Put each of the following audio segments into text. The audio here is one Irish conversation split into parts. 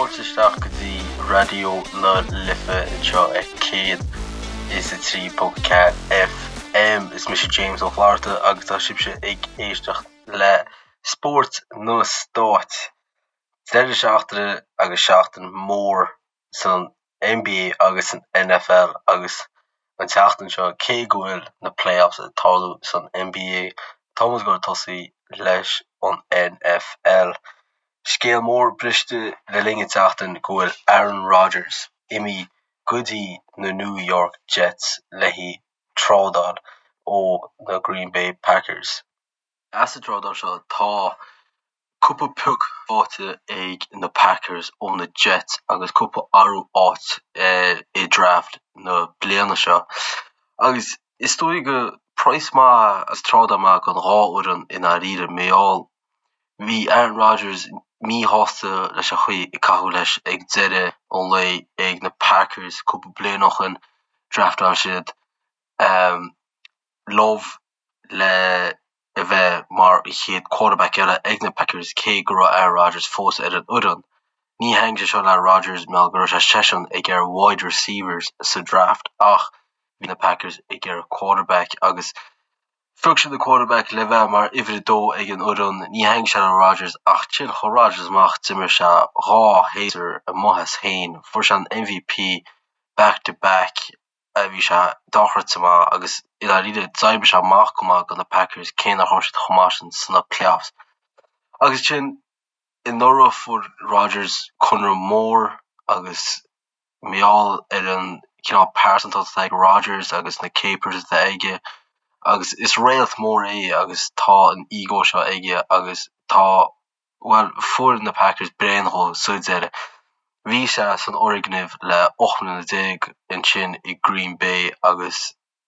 Fáilte isteach go dtí Raidió na Life anseo ar 103.4 FM. Is mise James Ó Flatharta agus tá sibhse ag éisteacht le Spórt na Stát. Deireadh seachtaine agus seachtain mhór san NBA agus san NFL agus an tseachtain seo cé go bhfuil na playoffs ag tarlú san NBA tá muid ag dul tosaí leis an NFL. Scéal mór briste le linn an tseachtain go bhfuil Aaron Rodgers imithe go dtí na New York Jets le haghaidh trádáil ó na Green Bay Packers. As an trádáil seo tá cúpla pioc faighte ag na Packers ó na Jets agus cúpla athrú áit i draft na bliana seo. Agus is dóigh go praghas maith agus trádáil maith don dhá fhoireann i ndáiríre mar gheall bhí Aaron Rodgers míshásta leis an chaoi a caitheadh leis ag deireadh an lae ag na Packers cúpla bliain ó shin. Draftáil siad Love le a bheith mar an chéad quarterback eile ag na Packers cé go raibh Aaron Rodgers fós ar an fhoireann. Ní thaitnigh sé seo le Rodgers mar go raibh sé seisean ag iarraidh wide receivers sa draft ach bhí na Packers ag iarraidh quarterback agus phioc siad an quarterback le bheith mar uimhir a dó ag an fhoireann. Ní thaitnigh sé le Rodgers ach ansin chuaigh Rodgers amach d'imir sé dhá shéasúr amuigh as féin, fuair sé an MVP back to back. a bhí sé dochreidte maith agus i ndáiríre d'oibrigh sé amach go maith do na Packers cé nach raibh siad chomh maith sin sna playoffs. Agus ansin anuraidh fuair Rodgers conradh mór agus mar gheall ar an cineál pearsantacht atá ag Rodgers agus na capers atá aige agus is réalt mór é agus tá an ego seo aige agus tá Bhuel, fuair na Packers bréan dhó sa deireadh. Bhí sé san fhoirgneamh le 18 mbliana ansin i Green Bay agus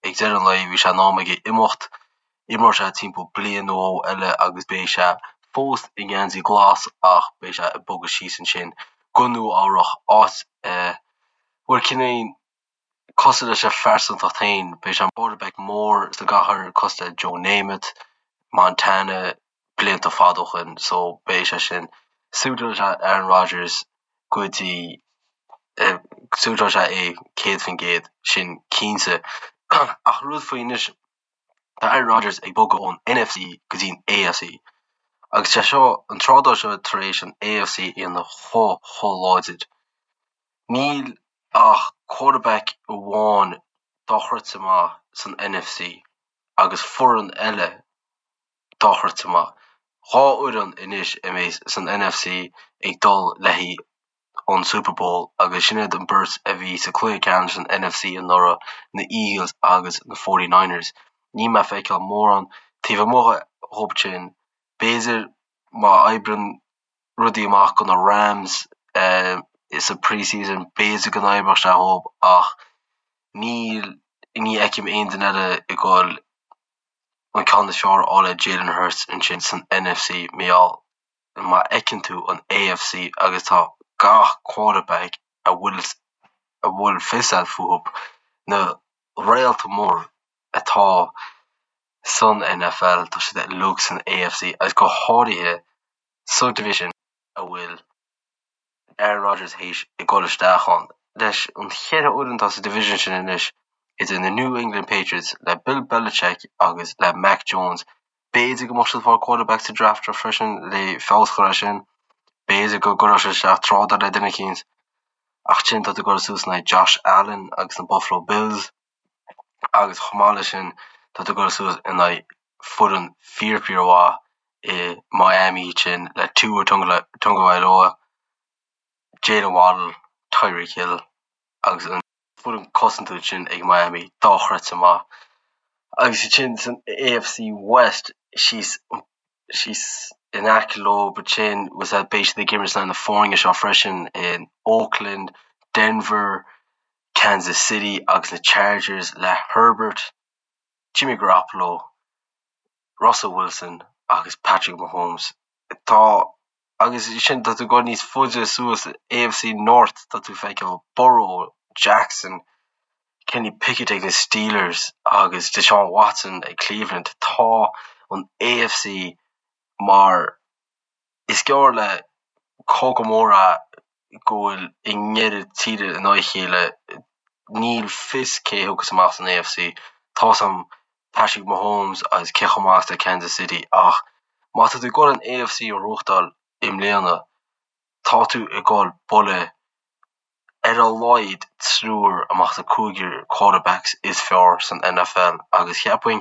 ag deireadh an lae bhí sé in am aige imeacht. Imreoidh sé timpeall bliain nó dhó eile agus beidh sé fós i ngeansaí glas ach beidh sé ag bogadh síos ansin go Nua Eabhrach, áit a bhfuil cineál cosúil leis a phearsantacht féin, beidh sé quarterback mór sa gcathair cosúil le Joe Namath, Montana blianta fada ó shin so beidh sé sin suiteoidh sé Aaron Rodgers go dtí suiteoidh sé é 100% sin cinnte. Ach rud faoi anois tá Aaron Rodgers ag bogadh ón NFC go dtí an AFC agus sé seo an trádáil seo tar éis an AFC a dhéanamh chomh chomh láidir. Níl ach quarterback amháin dochreidte maith san NFC agus foireann eile dochreidte maith. Dhá fhoireann anois a mbeidh san NFC ag dul le haghaidh an Super Bowl agus sin iad an beirt a bhí sa cluiche ceannais san NFC anuraidh, na Eagles agus na 49ers. Níl mé ag feiceáil mórán taobh amuigh dhóibh sin. B'fhéidir má oibreann rudaí amach do na Rams sa pre-season, b'fhéidir go n-oibreodh sé dhóibh ach níl, ní fheicim aon duine eile ag dul an ceann is fearr a fháil ar Jalen Hurts ansin san NFC mar gheall má fheiceann tú an AFC agus tá gach quarterback a bhfuil a bhfuil fios agat fúthu, na réalta mór atá san NFL, tá siad uilig san AFC agus go háirithe sa division a bhfuil Aaron Rodgers théis ag dul isteach ann. Leis an cheithre fhoireann atá sa division sin anois, idir na New England Patriots le Bill Belichick agus le Mac Jones, b'fhéidir go mbeadh siad ag fáil quarterback sa draft seo freisin le feabhas a chur air sin, b'fhéidir go gcuirfeadh siad isteach trádáil le duine eicínt. Ach ansin tá tú ag dul suas in aghaidh Josh Allen agus na Buffalo Bills agus chomh maith leis sin tá tú ag dul suas in aghaidh foireann fíor fíor mhaith i Miami sin le Tua Tagovailoa, Jaylen Waddle, Tyreek Hill agus an foireann cosanta sin ag Miami dochreidte maith. Agus ansin san AFC West síos síos in aice leo ansin beidh siad ag imirt in aghaidh na foirne seo freisin in Oakland, Denver, Kansas City agus na Chargers le Herbert, Jimmy Garoppolo, Russell Wilson agus Patrick Mahomes. Tá agus sin tá tú ag dul níos faide suas AFC North tá tú ag feiceáil Burrow, Jackson, Kenny Pickett ag na Steelers agus Deshaun Watson ag Cleveland. Tá an AFC mar is gearr le cogadh mór é. go bhfuil i ndeireadh tíre in aghaidh a chéile, níl fios cé a thiocfas amach san AFC. Tá's a'm Patrick Mahomes agus cé chomh maith is atá Kansas City ach má tá tú ag dul an AFC a ghnóthachtáil i mbliana, tá tú ag dul bualadh ar a laghad triúr amach as an cúigear quarterbacks is fearr san NFL agus cheapfainn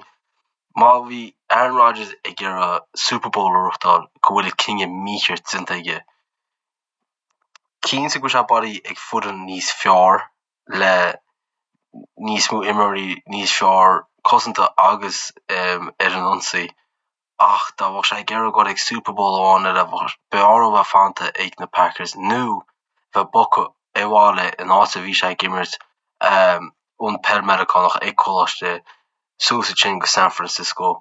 má bhí Aaron Rodgers ag iarraidh Super Bowl a ghnóthachtáil go bhfuil cinneadh mícheart déanta aige. Cinnte go bhfuil sé bailithe ag foireann níos fearr le níos mó imreoirí níos fearr cosanta agus ar an ionsaí ach dá mbeadh sé ag iarraidh dul ag Super Bowl amháin eile, b'fhearr dó bheith fanta ag na Packers nó bheith bogtha abhaile in áit a bhí sé ag imirt an peil Meiriceánach ag coláiste suas ansin go San Francisco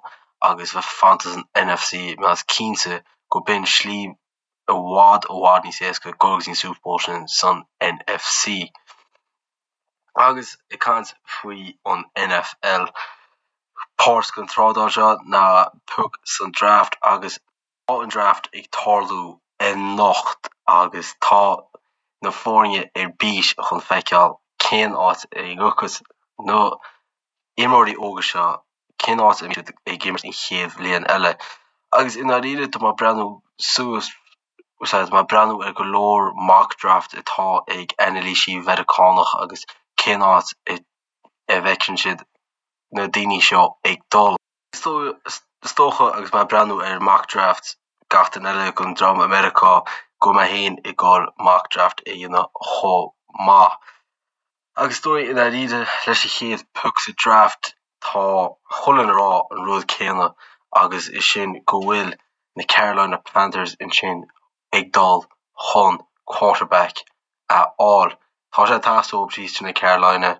agus bheith fanta san NFC mar is cinnte go b'in slí i bhfad i bhfad níos éasca dul go dtí an Super Bowl sin san NFC. Agus ag caint faoi an NFL, páirt den trádáil seo ná pioc san draft agus tá an draft ag tarlú anocht agus tá na foirne ar bís chun feiceáil cén áit a ngiocfas na imreoirí óga seo, cén áit a mbeidh siad ag imirt an chéad bhliain eile. Agus i ndáiríre tá mé ag breathnú suas Úsáid mé ag breathnú ar go leor mock draft atá ag anailísí Mheiriceánach agus cén áit a bhfeiceann siad na daoine seo ag dul. Is dócha agus mé ag breathnú ar mock draft gach duine eile den dream i Meiriceá go bhfuil mé féin ag dul mock draft a dhéanamh chomh maith. Agus is dóigh i ndáiríre leis an chéad pioc sa draft tá chuile dhuine ag rá an rud céanna agus is sin go bhfuil na Carolina Panthers ansin ag dul chun quarterback a fháil. Tá sé ag teastáil uathu síos ansin i Carolina.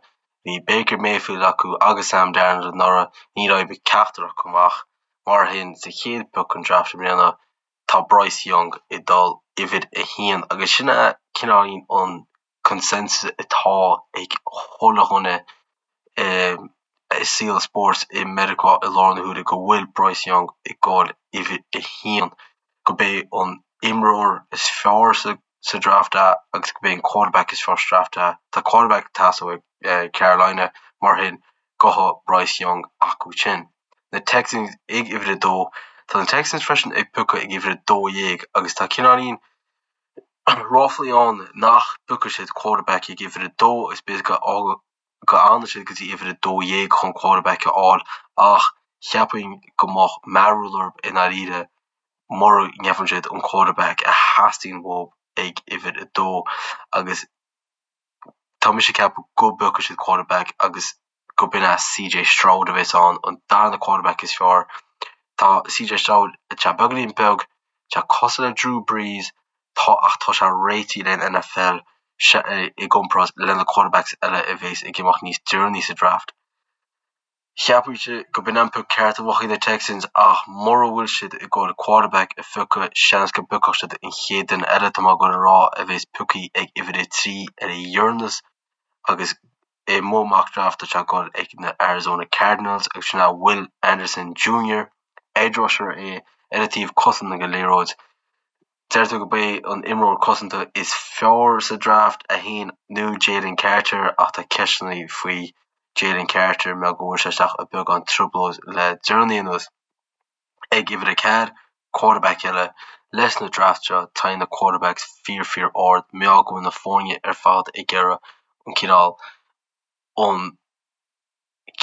Bhí Baker Mayfield acu agus Sam Darnold anuraidh, níor oibrigh ceachtar acu amach. Mar sin sa chéad pioc an draft i mbliana tá Bryce Young ag dul uimhir a haon agus sin é cineáilín an consensus atá ag chuile dhuine i saol spóirt i Meiriceá i láthair na huaire go bhfuil Bryce Young ag dul uimhir a haon, go b'é an imreoir is fearr sa draft é agus go b'é an quarterback is fearr sa draft é. Tá quarterback ag teastáil ag Carolina mar sin gabhfaidh Bryce Young acu sin. Na Texans ag uimhir a dó. Tá na Texans freisin ag piocadh ag uimhir a 12 agus tá cineáilín ráflaí ann nach bpiocfaidh siad quarterback ag uimhir a dó agus b'fhéidir go bhfanfaidh siad go dtí uimhir a 12 chun quarterback a fháil ach cheapfainn go mbeadh mearbhall orthu i ndáiríre mura ngeibheann siad an quarterback a theastaíonn uathu ag uimhir a dó agus tá mise ag ceapadh go bpiocfaidh siad quarterback agus go b'in é CJ Stroud a bheas ann, an darna quarterback is fearr. Tá CJ Stroud tá sé beagáinín beag, tá sé cosúil le Drew Brees, tá ach tá sé réitithe le an NFL i gcomparáid le na quarterbacks eile a bheas ag imeacht níos deireanaí sa draft. Cheapfainnse go b'in an pioc ceart a bheadh ag na Texans ach mura bhfuil siad ag dul quarterback a phiocadh, seans go bpiocfadh siad an chéad duine eile tá mé ag dul a rá a bheas pioctha ag uimhir a 3 ar a dheireanas agus I mo mock draft tá sé ag dul ag na Arizona Cardinals agus sin é Will Anderson Jr. Edge rusher é ar an taobh cosanta den liathróid. Deirtear gurb é an imreoir cosanta is fearr sa draft é féin nó Jalen Carter ach tá ceisteanna faoi Jalen Carter mar go bhfuair sé isteach i beagán trioblóid le deireanaí anuas. Ag uimhir 4, quarterback eile. Leis na draft seo, téann na quarterbacks fíor fíor ard, mar go bhfuil na foirne ar fad ag iarraidh an cineál, an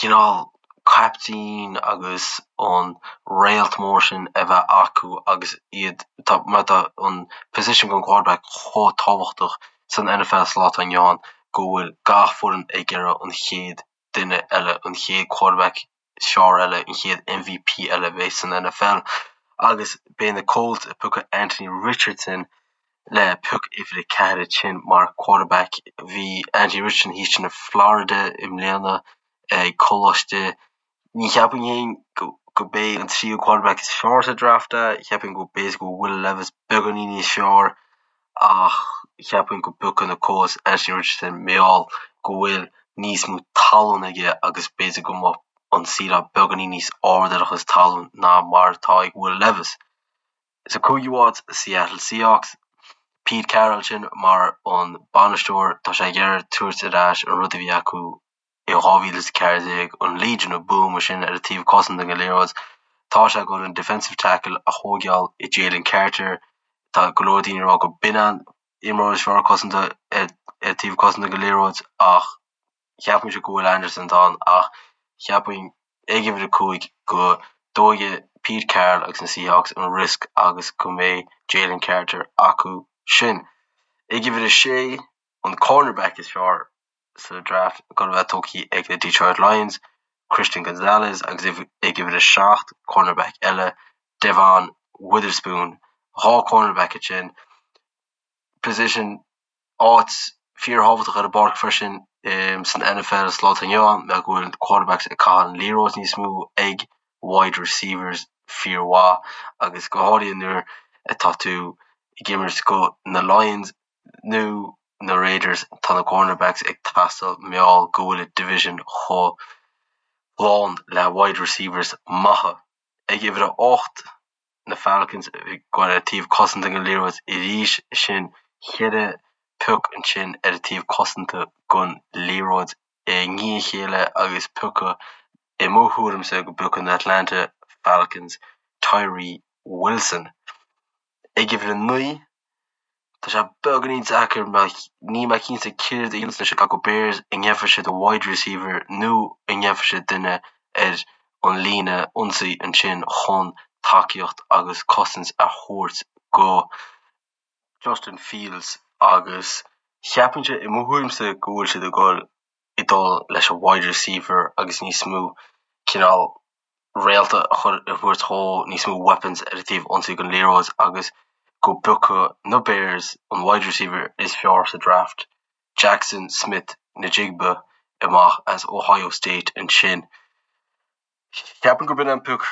cineál caiptín agus an réalt mór sin a bheith acu agus iad, tá, mar tá an position don quarterback chomh tábhachtach san NFL sa lá atá inniu ann go bhfuil gach foireann ag iarraidh an chéad duine eile, an chéad quarterback is fearr eile, an chéad MVP eile a bheidh san NFL agus beidh na Colts ag piocadh Anthony Richardson le pioc uimhir 4 ansin mar quarterback. Bhí Anthony Richardson thíos ansin i Florida i mbliana ag coláiste. Ní cheapfainn féin go b'é an tríú quarterback is fearr sa draft é, cheapfainn go b'fhéidir go bhfuil Will Levis beagáinín níos fearr ach cheapfainn go bpiocfaidh na Colts Anthony Richardson mar gheall go bhfuil níos mó tallann aige agus b'fhéidir go mbeadh an ceiling beagáinín níos airde ar a chuid tallann ná mar atá ag Will Levis. Sa cúigiú háit, Seattle Seahawks. Pete Carroll sin mar an bainisteoir, tá sé ag iarraidh tabhairt ar ais an rud a bhí acu i 2014, an Legion of Boom sin ar an taobh cosanta den liathróid. Tá sé ag dul an defensive tackle a thóigeáil i Jalen Carter. Tá go leor daoine ag rá go b'in an imreoir is fearr cosanta ar an taobh cosanta den liathróid ach Cheapfainnse go bhfuil Anderson ann ach cheapfainn ag uimhir 5 go dtógfaidh Pete Carroll agus na Seahawks an riosc agus go mbeidh Jalen Carter acu sin. Ag uimhir 6, an cornerback is fearr sa draft ag dul a bheith tógtha ag na Detroit Lions, Christian Gonzalez agus ag uimhir 7, cornerback eile, Devon Witherspoon. 2 cornerback ansin. Position áit fíorthábhachtach ar an bpáirc freisin san NFL sa lá atá inniu ann mar go bhfuil quarterbacks ag caitheamh an liathróid níos mó ag wide receivers fíormhaith agus go háirithe nuair atá tú ag imirt go na Lions nó na Raiders tá na cornerbacks ag teastáil mar gheall go bhfuil an division chomh lán le wide receivers maithe. Ag uimhir a 8 na Falcons ag goil ar taobh cosanta den liathróid arís sin cheithre pioc ansin ar an taobh cosanta den liathróid i ndiaidh a chéile agus piocadh i mo thuairimse go bpiocfaidh na Atlanta Falcons Tyree Wilson ag uimhir 9. Tá sé beagáinín deacair mar níl mé cinnte céard a dhéanfas na Chicago Bears, an ndéanfaidh siad wide receiver nó an ndéanfaidh siad duine ar an líne ionsaí ansin chun tacaíocht agus cosaint a thabhairt go Justin Fields agus cheapfainnse i mo thuairimse go bhfuil siad ag dul ag dul leis an wide receiver agus níos mó cineál réalta a chur a thabhairt dhó, níos mó weapons ar an taobh ionsaí den liathróid agus go bpiocfaidh na Bears an wide receiver is fearr sa draft, Jaxon Smith-Njigba amach as Ohio State ansin. Cheapfainn gurb in an pioc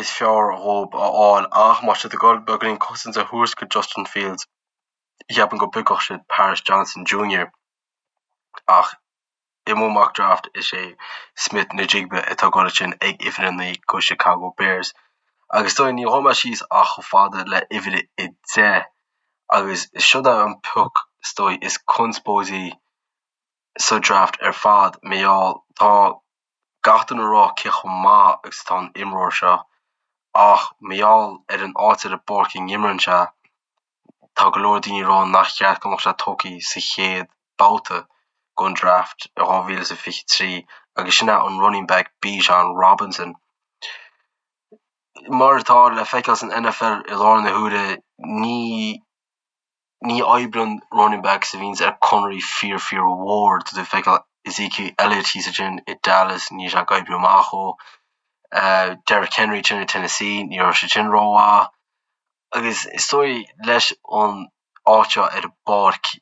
is fearr dhóibh a fháil ach má tá siad ag dul beagáinín cosaint a thabhairt go Justin Fields, cheapfainn go bpiocfadh siad Paris Johnson Jr. Ach i mo mock draft is é Smith-Njigba atá ag dul ansin ag uimhir 9 go Chicago Bears. Agus is dóigh ní ghabhfaidh mé síos ach chomh fada le uimhir 10 agus seo é an pioc is dóigh is conspóidí sa draft ar fad mar gheall tá gach duine ag rá cé chomh maith agus atá an imreoir seo ach mar gheall ar an áit ar an bpáirc a n-imríonn sé Tá go leor daoine ag rá nach cheart go mbeadh sé tógtha sa chéad babhta den draft i 2023 agus sin é an running back Bijan Robinson. Mar atá le feiceáil san NFL i láthair na huaire, ní ní oibríonn running backs a bhíonns ar conairí fíor fíor mhór. Tá tú ag feiceáil Ezekiel Elliott thíos ansin i Dallas, níl sé ag oibriú amach dhó. Derrick Henry ansin i Tennessee, ní raibh sé sin rómhaith. Agus is dóigh leis an áit seo ar an bpáirc,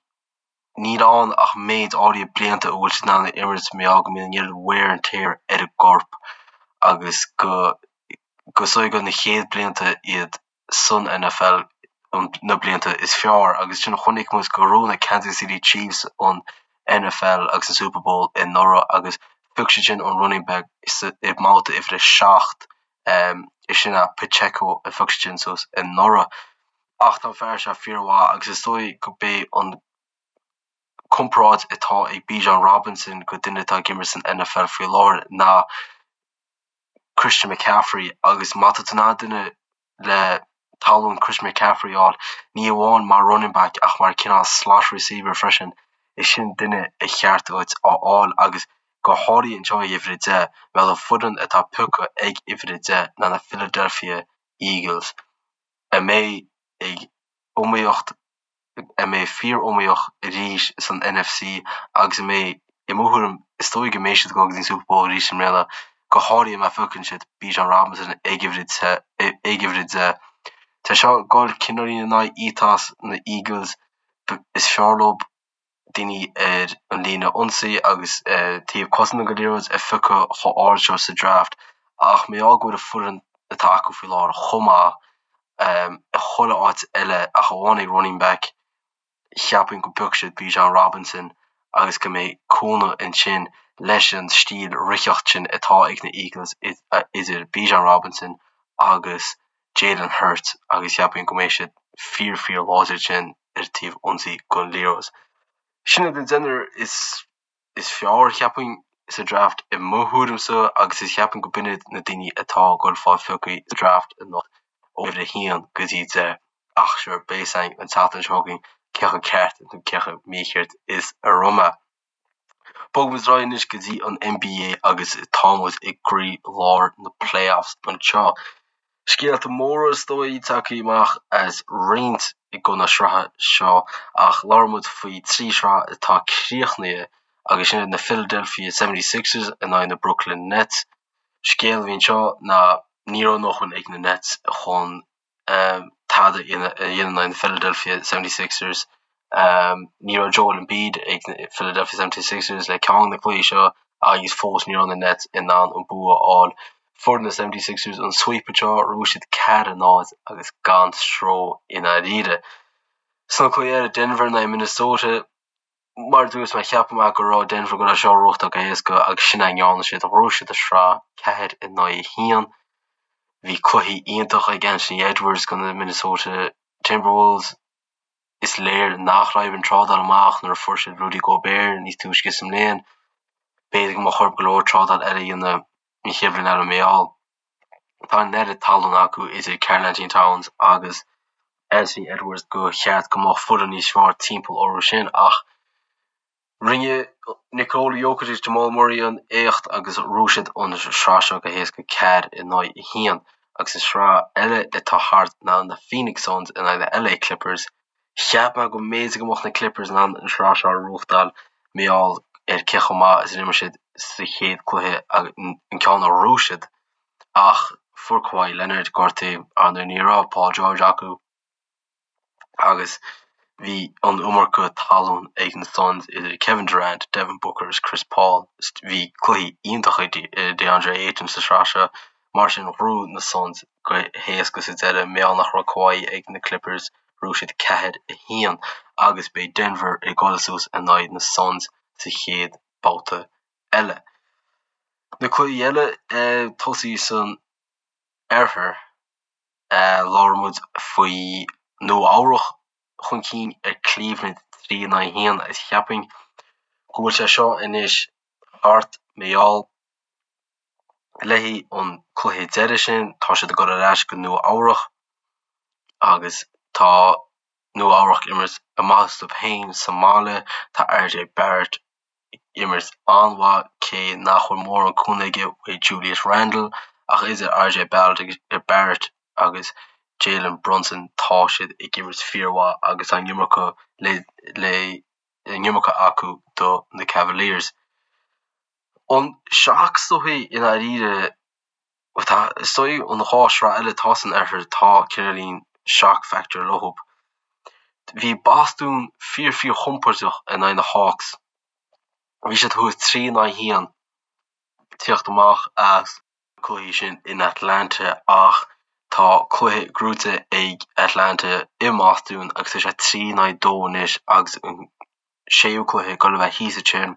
níl ann ach méid áirithe blianta a bhfuil siad in ann a imirt mar gheall go mbíonn an oiread wear and tear ar an gcorp agus go go is dóigh gur na chéad blianta iad san NFL na blianta is fearr agus sin chonaic muid go raibh na Kansas City Chiefs an NFL agus an Super Bowl anuraidh agus phioc siad sin an running back i mbabhta uimhir a 7 Is sin é Pacheco a phioc siad sin suas anuraidh. Ach tá an fear seo fíormhaith agus is dóigh go b'é an comparáid atá ag Bijan Robinson go duine atá ag imirt san NFL faoi láthair ná Christian McCaffrey agus má tá tú in ann duine le tallann Christian McCaffrey a fháil, ní amháin mar running back ach mar cineál slot receiver freisin, is sin duine a cheart duit a fháil agus go háirithe anseo ag uimhir 10, mar an foireann atá pioctha ag uimhir 10 ná na Philadelphia Eagles, a mbeidh ag iomaíocht, a mbeidh fíor-iomaíoch arís san NFC agus a mbeidh, i mo thuairim, is dóigh go mbeidh siad ag dul go dtí an Super Bowl arís i mbliana, go háirithe má phiocann siad Bijan Robinson ag uimhir ag uimhir 10. Tá seo ag dul cineáilín in aghaidh ethos na Eagles, is fearr leo daoine ar an líne ionsaí agus taobh cosanta den liathróid a phiocadh chomh ard seo sa draft ach mar gheall go bhfuil an foireann atá acu faoi láthair chomh maith i chuile áit eile ach amháin ag running back, cheapfainn go bpiocfaidh siad Bijan Robinson agus go mbeidh cúnamh ansin leis an stíl ritheacht sin atá ag na Eagles idir Bijan Robinson agus Jalen Hurts agus cheapfainn go mbeidh siad fíor fíor láidir ansin. ar taobh ionsaí don liathróid. Sin iad an deichniúr is is fearr, cheapfainn, sa draft i mo thuairimse agus is cheapfainn go b'in iad na daoine atá ag dul fáil pioctha sa draft anocht ó uimhir a haon go dtí 10. Ach sure, beidh fhios againn an tseachtain seo chugainn cé chomh ceart nó cé chomh mícheart is a raibh mé. Bogfaimid ar aghaidh anois go dtí an NBA agus tá muid i gcroí lár na playoffs anseo. Scéalta móra is dóigh tagtha amach as roinnt de na sraithe seo ach labhróidh muid faoi 3 shraith atá críochnaithe agus sin iad na Philadelphia 76ers in aghaidh na Brooklyn Nets. Scéal a bhí anseo ná ní raibh a ndóthain ag na Nets chun tada a dhéanamh in aghaidh na Philadelphia 76ers. Ní raibh Joel Embiid ag na Philadelphia 76ers le ceann de na cluichí seo agus fós ní raibh na Nets in ann an bua a fháil. Fuair na 76ers an sweep anseo, ghnóthaigh siad 4-0 agus gan stró i ndáiríre. Sna cluichí eile, Denver in aghaidh Minnesota, Mar a dúirt mé, cheap mé go raibh Denver ag dul é seo a ghnóthachtáil go héasca agus sin é a ndearna siad. Ghnóthaigh siad an sraith 4 in aghaidh 1. Bhí cluichí iontach ag Anthony Edwards do na Minnesota Timberwolves. Is léir nach raibh an trádáil amach nuair a fuair siad Rudy Gobert níos túisce sa mbliain. B'fhéidir go mbeadh orthu go leor trádáil eile a dhéanamh an chéad bhliain eile mar gheall. Tá an oiread tallann acu idir Karl-Anthony Towns agus Anthony Edwards go cheart go mbeadh foireann níos fearr timpeall orthu sin ach rinne Nikola Jokic agus Jamal Murray an éacht agus ghnóthaigh siad an sraith seo go héasca 4 in aghaidh 1 agus an sraith eile atá thart ná na Phoenix Suns in aghaidh na LA Clippers. Cheap mé go mb'fhéidir go mbeadh na Clippers in ann an sraith seo a ghnóthachtáil mar gheall ar cé chomh maith is a d'imir siad sa chéad cluiche an ceann a ghnóthaigh siad ach fuair Kawhi Leonard gortú, ar ndóigh ní raibh Paul George acu agus bhí an iomarca talún ag na Suns idir Kevin Durant, Devin Booker is Chris Paul. Bhí cluichí iontacha ag DeAndre Ayton sa sraith seo mar sin ghnóthaigh na Suns go héasca sa deireadh mar gheall nach raibh Kawhi ag na Clippers. Ghnóthaigh siad 4, 1 agus beidh Denver ag dul suas in aghaidh na Suns sa chéad babhta eile. Na cluichí eile tosaí san oirthear, labhair muid faoi Nua Eabhrach chun cinn ar Cleveland 3 in aghaidh 1 agus cheapfainn go bhfuil sé seo anois thart mar gheall le haghaidh an cluiche deiridh sin, tá siad ag dul ar ais go Nua Eabhrach agus tá Nua Eabhrach ag imirt amach astu féin sa mbaile. Tá RJ Barrett ag imirt an-mhaith cé nach bhfuil mórán cúnamh aige uaidh Julius Randle ach idir RJ Barrett agus Jalen Brunson tá siad ag imirt fíormhaith agus tá an iomarca le le an iomarca acu do na Cavaliers. An shock is dóichí i ndáiríre, tá, is dóigh an dá shraith eile atá san oirthear, tá cineáilín shock factor leo. Bhí Bostún fíor fíor chompordach in aghaidh na Hawks. Bhí siad thuas 3 in aghaidh 1 tíocht amach as na cluichí sin in Atlanta ach tá cluiche gnóite ag Atlanta i mBostún agus tá sé 3 in aghaidh 2 anois agus an séú cluiche ag dul a bheith thíos ansin.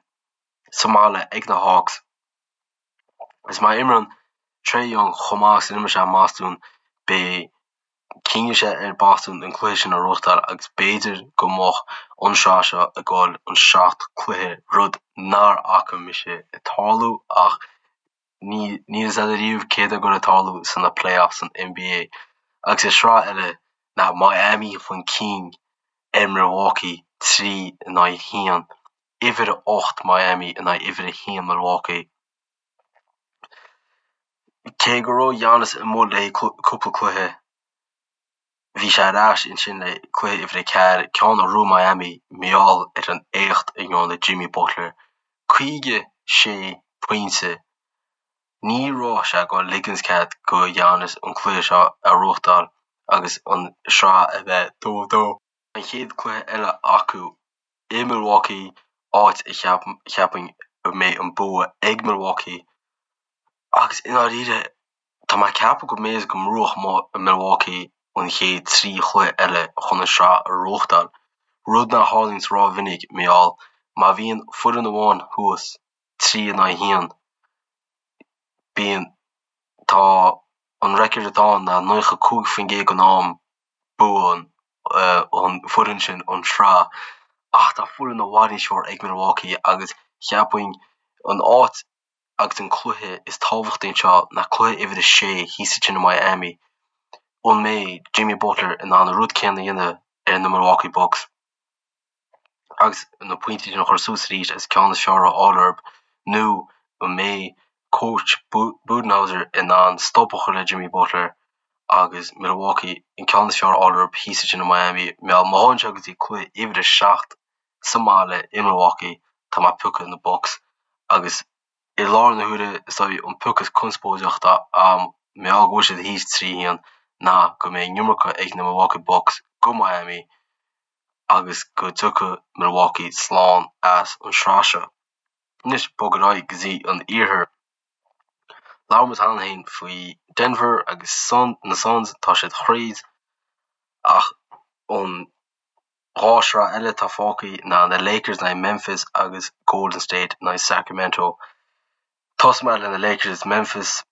sa mbaile ag na Hawks. Is má imríonn Trae Young chomh maith is a d'imir sé i mBostún, beidh cinneadh sé ar Boston an cluiche sin a ghnóthachtáil agus b'fhéidir go mbeadh an sraith seo ag dul an 7 cluiche, rud nár fhaca mise ag tarlú ach níl fhios agat ariamh céard atá ag dul ag tarlú sna playoffs san NBA. Agus an sraith eile ná Miami chun cinn ar Milwaukee 3 in aghaidh 1. Uimhir 8 Miami in aghaidh uimhir 1 Milwaukee. Cé go raibh Giannis amuigh le cúpla cluiche, bhí sé ar ais ansin le cluiche uimhir 4, ceann a ghnóthaigh Miami mar gheall ar an éacht a ndearna Jimmy Butler. 56 pointe. Ní raibh sé ag dul ligint cead go Giannis an cluiche seo a ghnóthachtáil agus an sraith a bheith 2-2. An chéad cluiche eile acu i Milwaukee, áit a cheapfainn go mbeidh an bua ag Milwaukee agus i ndáiríre tá mé ag ceapadh go mb'fhéidir go mbuafadh Milwaukee an chéad 3 chluiche eile chun an sraith a ghnóthachtáil, rud nach tharlaíonns rómhinic mar gheall má bhíonn foireann amháin thuas 3 in aghaidh 1 bíonn tá an record atá ann ná 95% den am buann. an foireann sin an sraith ach tá foireann i bhfad níos fearr ag Milwaukee agus cheapfainn an áit agus an cluiche is tábhachtaí anseo ná cluiche uimhir a sé thíos ansin i Miami. An mbeidh Jimmy Butler in ann an rud céanna a dhéanamh ar na Milwaukee Bucks? agus na pointí sin a chur suas arís agus ceann is fearr a fháil orthu nó an mbeidh coach Budenholzer in ann stop a chur le Jimmy Butler agus Milwaukee an ceann is fearr a fháil orthu thíos ansin i Miami. Má théann sé go dtí cluiche uimhir a 7 sa mbaile i Milwaukee tá mé ag piocadh na Bucks agus i láthair na huaire is dóigh an pioc is conspóideach atá agam mar gheall go bhfuil siad thíos 3 1 ná go mbeidh an iomarca ag na Milwaukee Bucks go Miami agus go dtiocfaidh Milwaukee slán as an sraith seo. Anois bog ar aghaidh go dtí an iarthar. Labhair muid cheana féin faoi Denver agus na Suns, tá siad thríd ach an dá shraith eile atá fágtha ná na Lakers in aghaidh Memphis agus Golden State in aghaidh Sacramento. Tosóidh mé le na Lakers is Memphis.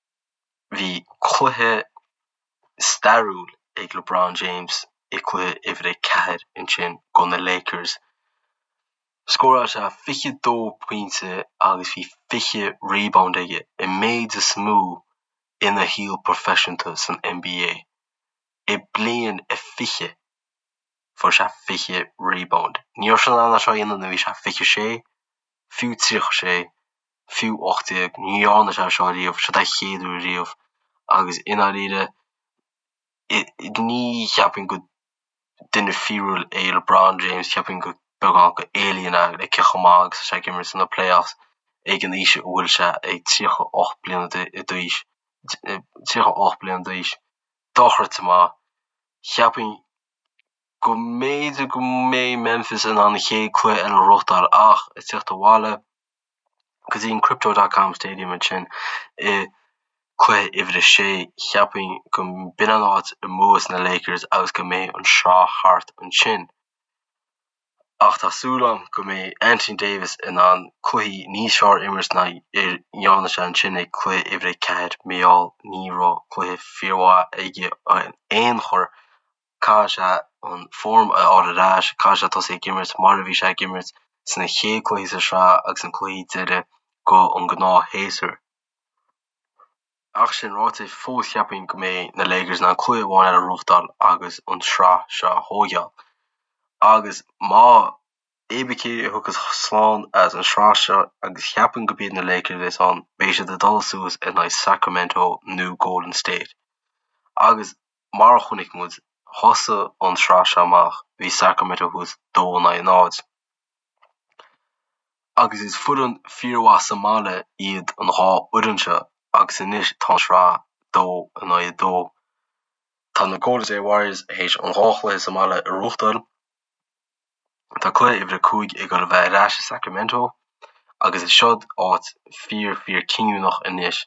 Bhí cluiche stairiúil ag LeBron James i cluiche uimhir a 4 ansin go na Lakers. Scóráil sé 22 pointe agus bhí 20 rebound aige, an méid is mó ina shaol proifisiúnta san NBA. I bliain a 20 fuair sé 20 rebound. Ní raibh sé in ann é seo a dhéanamh nuair a bhí sé 26, fiú 36. fiú 18. Ní dhearna sé seo riamh, seo é a chéad uair riamh agus i ndáiríre ní cheapfainn go duine fíorúil é LeBron James, cheapfainn go beagán go alien é le cé chomh maith agus atá sé ag imirt sna playoffs ag an aois a bhfuil sé ag 38 bliana d'aois, 38 bliana d'aois. Dochreidte maith. Cheapfainn go mb'fhéidir go mbeidh Memphis in ann an chéad cluiche eile a ghnóthachtáil ach ag tíocht abhaile go dtí an Crypto dot com Stadium ansin i cluiche uimhir a sé, cheapfainn go mb'in an áit a mbuafas na Lakers agus go mbeidh an sraith thart ansin. Ach tá súil agam go mbeidh Anthony Davis in ann cluichí níos fearr a imirt ná a dhearna sé ansin ag cluiche uimhir a 4 mar gheall ní raibh cluiche fíormhaith aige in aon chor. Caithfidh sé an form a fháil ar ais, caithfidh sé tosaí ag imirt mar a bhí sé ag imirt sna chéad cluichí sa sraith agus na cluichí deiridh go an gnáthshéasúr. Ach sin ráite, fós cheapfainn go mbeidh na Lakers in ann cluiche amháin eile a ghnóthachtáil agus an sraith seo a thóigeáil. Agus má cibé cé a thiocfas slán as an sraith seo agus cheapfainn go b'iad na Lakers a bheas ann, beidh siad ag dul suas in aghaidh Sacramento nó Golden State. Agus Mar a chonaic muid, thosaigh an tsraith seo amach, bhí Sacramento thuas 2 in aghaidh 0. Agus is foireann fíormhaith sa mbaile iad an dhá fhoireann seo agus anois tá an sraith 2 in aghaidh 2. Tá na Golden State Warriors théis an dhá chluiche sa mbaile a ghnóthachtáil. Tá cluiche uimhir 5 ag dul a bheith ar ais i Sacramento agus is seod áit fíor fíor cinniúnach anois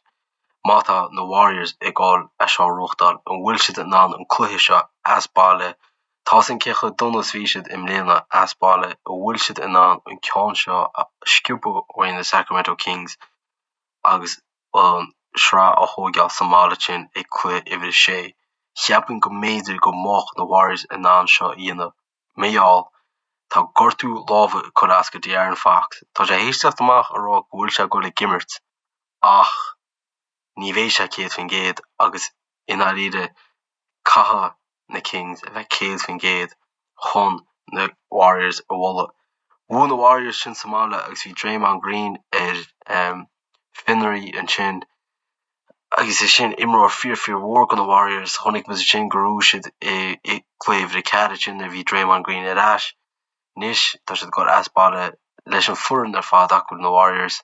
má tá na Warriors ag dul é seo a ghnóthachtáil, an bhfuil siad in ann an cluiche seo as baile, tá a fhios againn cé chomh dona is bhí siad i mbliana as baile, an bhfuil siad in ann an ceann seo a sciobadh uaidh na Sacramento Kings agus an sraith a thóigeáil sa mbaile sin ag cluiche uimhir 6. Cheapfainn go mb'fhéidir go mbeadh na Warriors in ann seo a dhéanamh. Mar gheall, tá gortú láimhe ag cur as go De'Aaron Fox. Tá sé théis teacht amach a rá go bhfuil sé ag dul ag imirt ach ní bheidh sé 100% agus i ndáiríre caithfidh na Kings a bheith 100% chun na Warriors a bhualadh. Bhuaigh na Warriors sin sa mbaile agus bhí Draymond Green ar fionraí ansin agus is sin imreoir fíor fíor mhór go na Warriors. Chonaic muid ansin gur bhuaigh siad i gcluiche uimhir a 4 ansin nuair a bhí Draymond Green ar ais. Anois tá siad ag dul as baile leis an foireann ar fad acu na Warriors.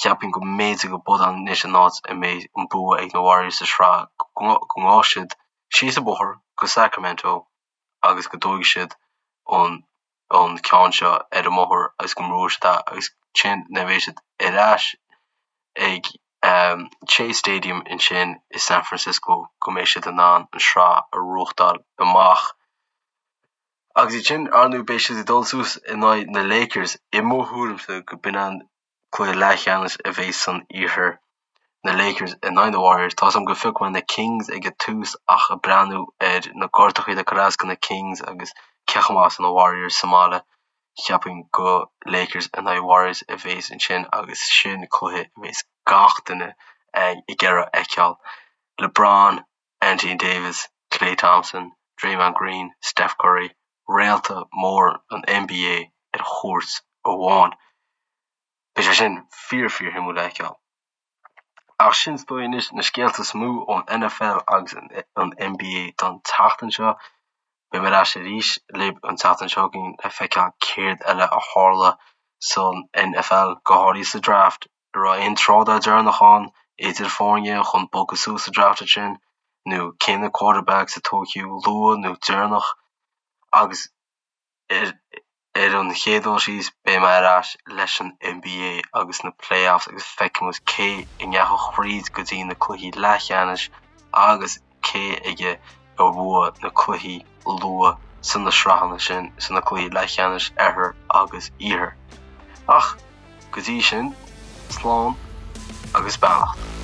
Cheapfainn go mb'fhéidir go b'in anois an áit a mbeidh an bua ag na Warriors sa sraith, go ngabhfaidh siad síos an bóthar go Sacramento agus go dtógfaidh siad an an ceann seo ar an mbóthar agus go mbuafaidh siad é agus ansin nuair a bheidh siad ar ais ag Chase Stadium ansin i San Francisco go mbeidh siad in ann an sraith a ghnóthachtáil amach. Agus iad sin, ar ndóigh, beidh siad ag dul suas in aghaidh na Lakers, i mo thuairimse go b'in an cluiche leathcheannais a bheidh san iarthar. Na Lakers in aghaidh na Warriors. Tá's agam go phioc mé na Kings ag an tús ach ag breathnú ar na gortachaí atá curtha as do na Kings agus cé chomh maith is atá na Warriors sa mbaile, cheapfainn go Lakers in aghaidh Warriors a bhéas ansin agus sin cluiche a bhéas gach duine ag iarraidh a fheiceáil. LeBron, Anthony Davis, Klay Thompson, Draymond Green, Steph Curry, réalta mór an NBA ar chúirt amháin. Beidh sé sin fíor fíor shuimiúil le feiceáil. Ach sin is dóigh anois na scéalta is mó ón NFL agus an NBA don tseachtain seo. Beidh mé ar ais arís libh an tseachtain seo chugainn le feiceáil céard eile a tharla san NFL, go háirithe sa draft. An raibh aon trádáil deireanach ann idir foirne chun bogadh suas sa draft ansin nó cé na quarterbacks a tógtha luath nó deireanach agus Ar an chéad dul síos, beidh mé ar ais leis an NBA agus na playoffs agus feicfidh muid cé a ndeachaigh thríd go dtí na cluichí leathcheannais agus cé aige a bhuaigh na cluichí luath sna sraitheanna sin, sna cluichí leathcheannais Oirthir agus Iarthair. Ach go dtí sin, slán agus beannacht.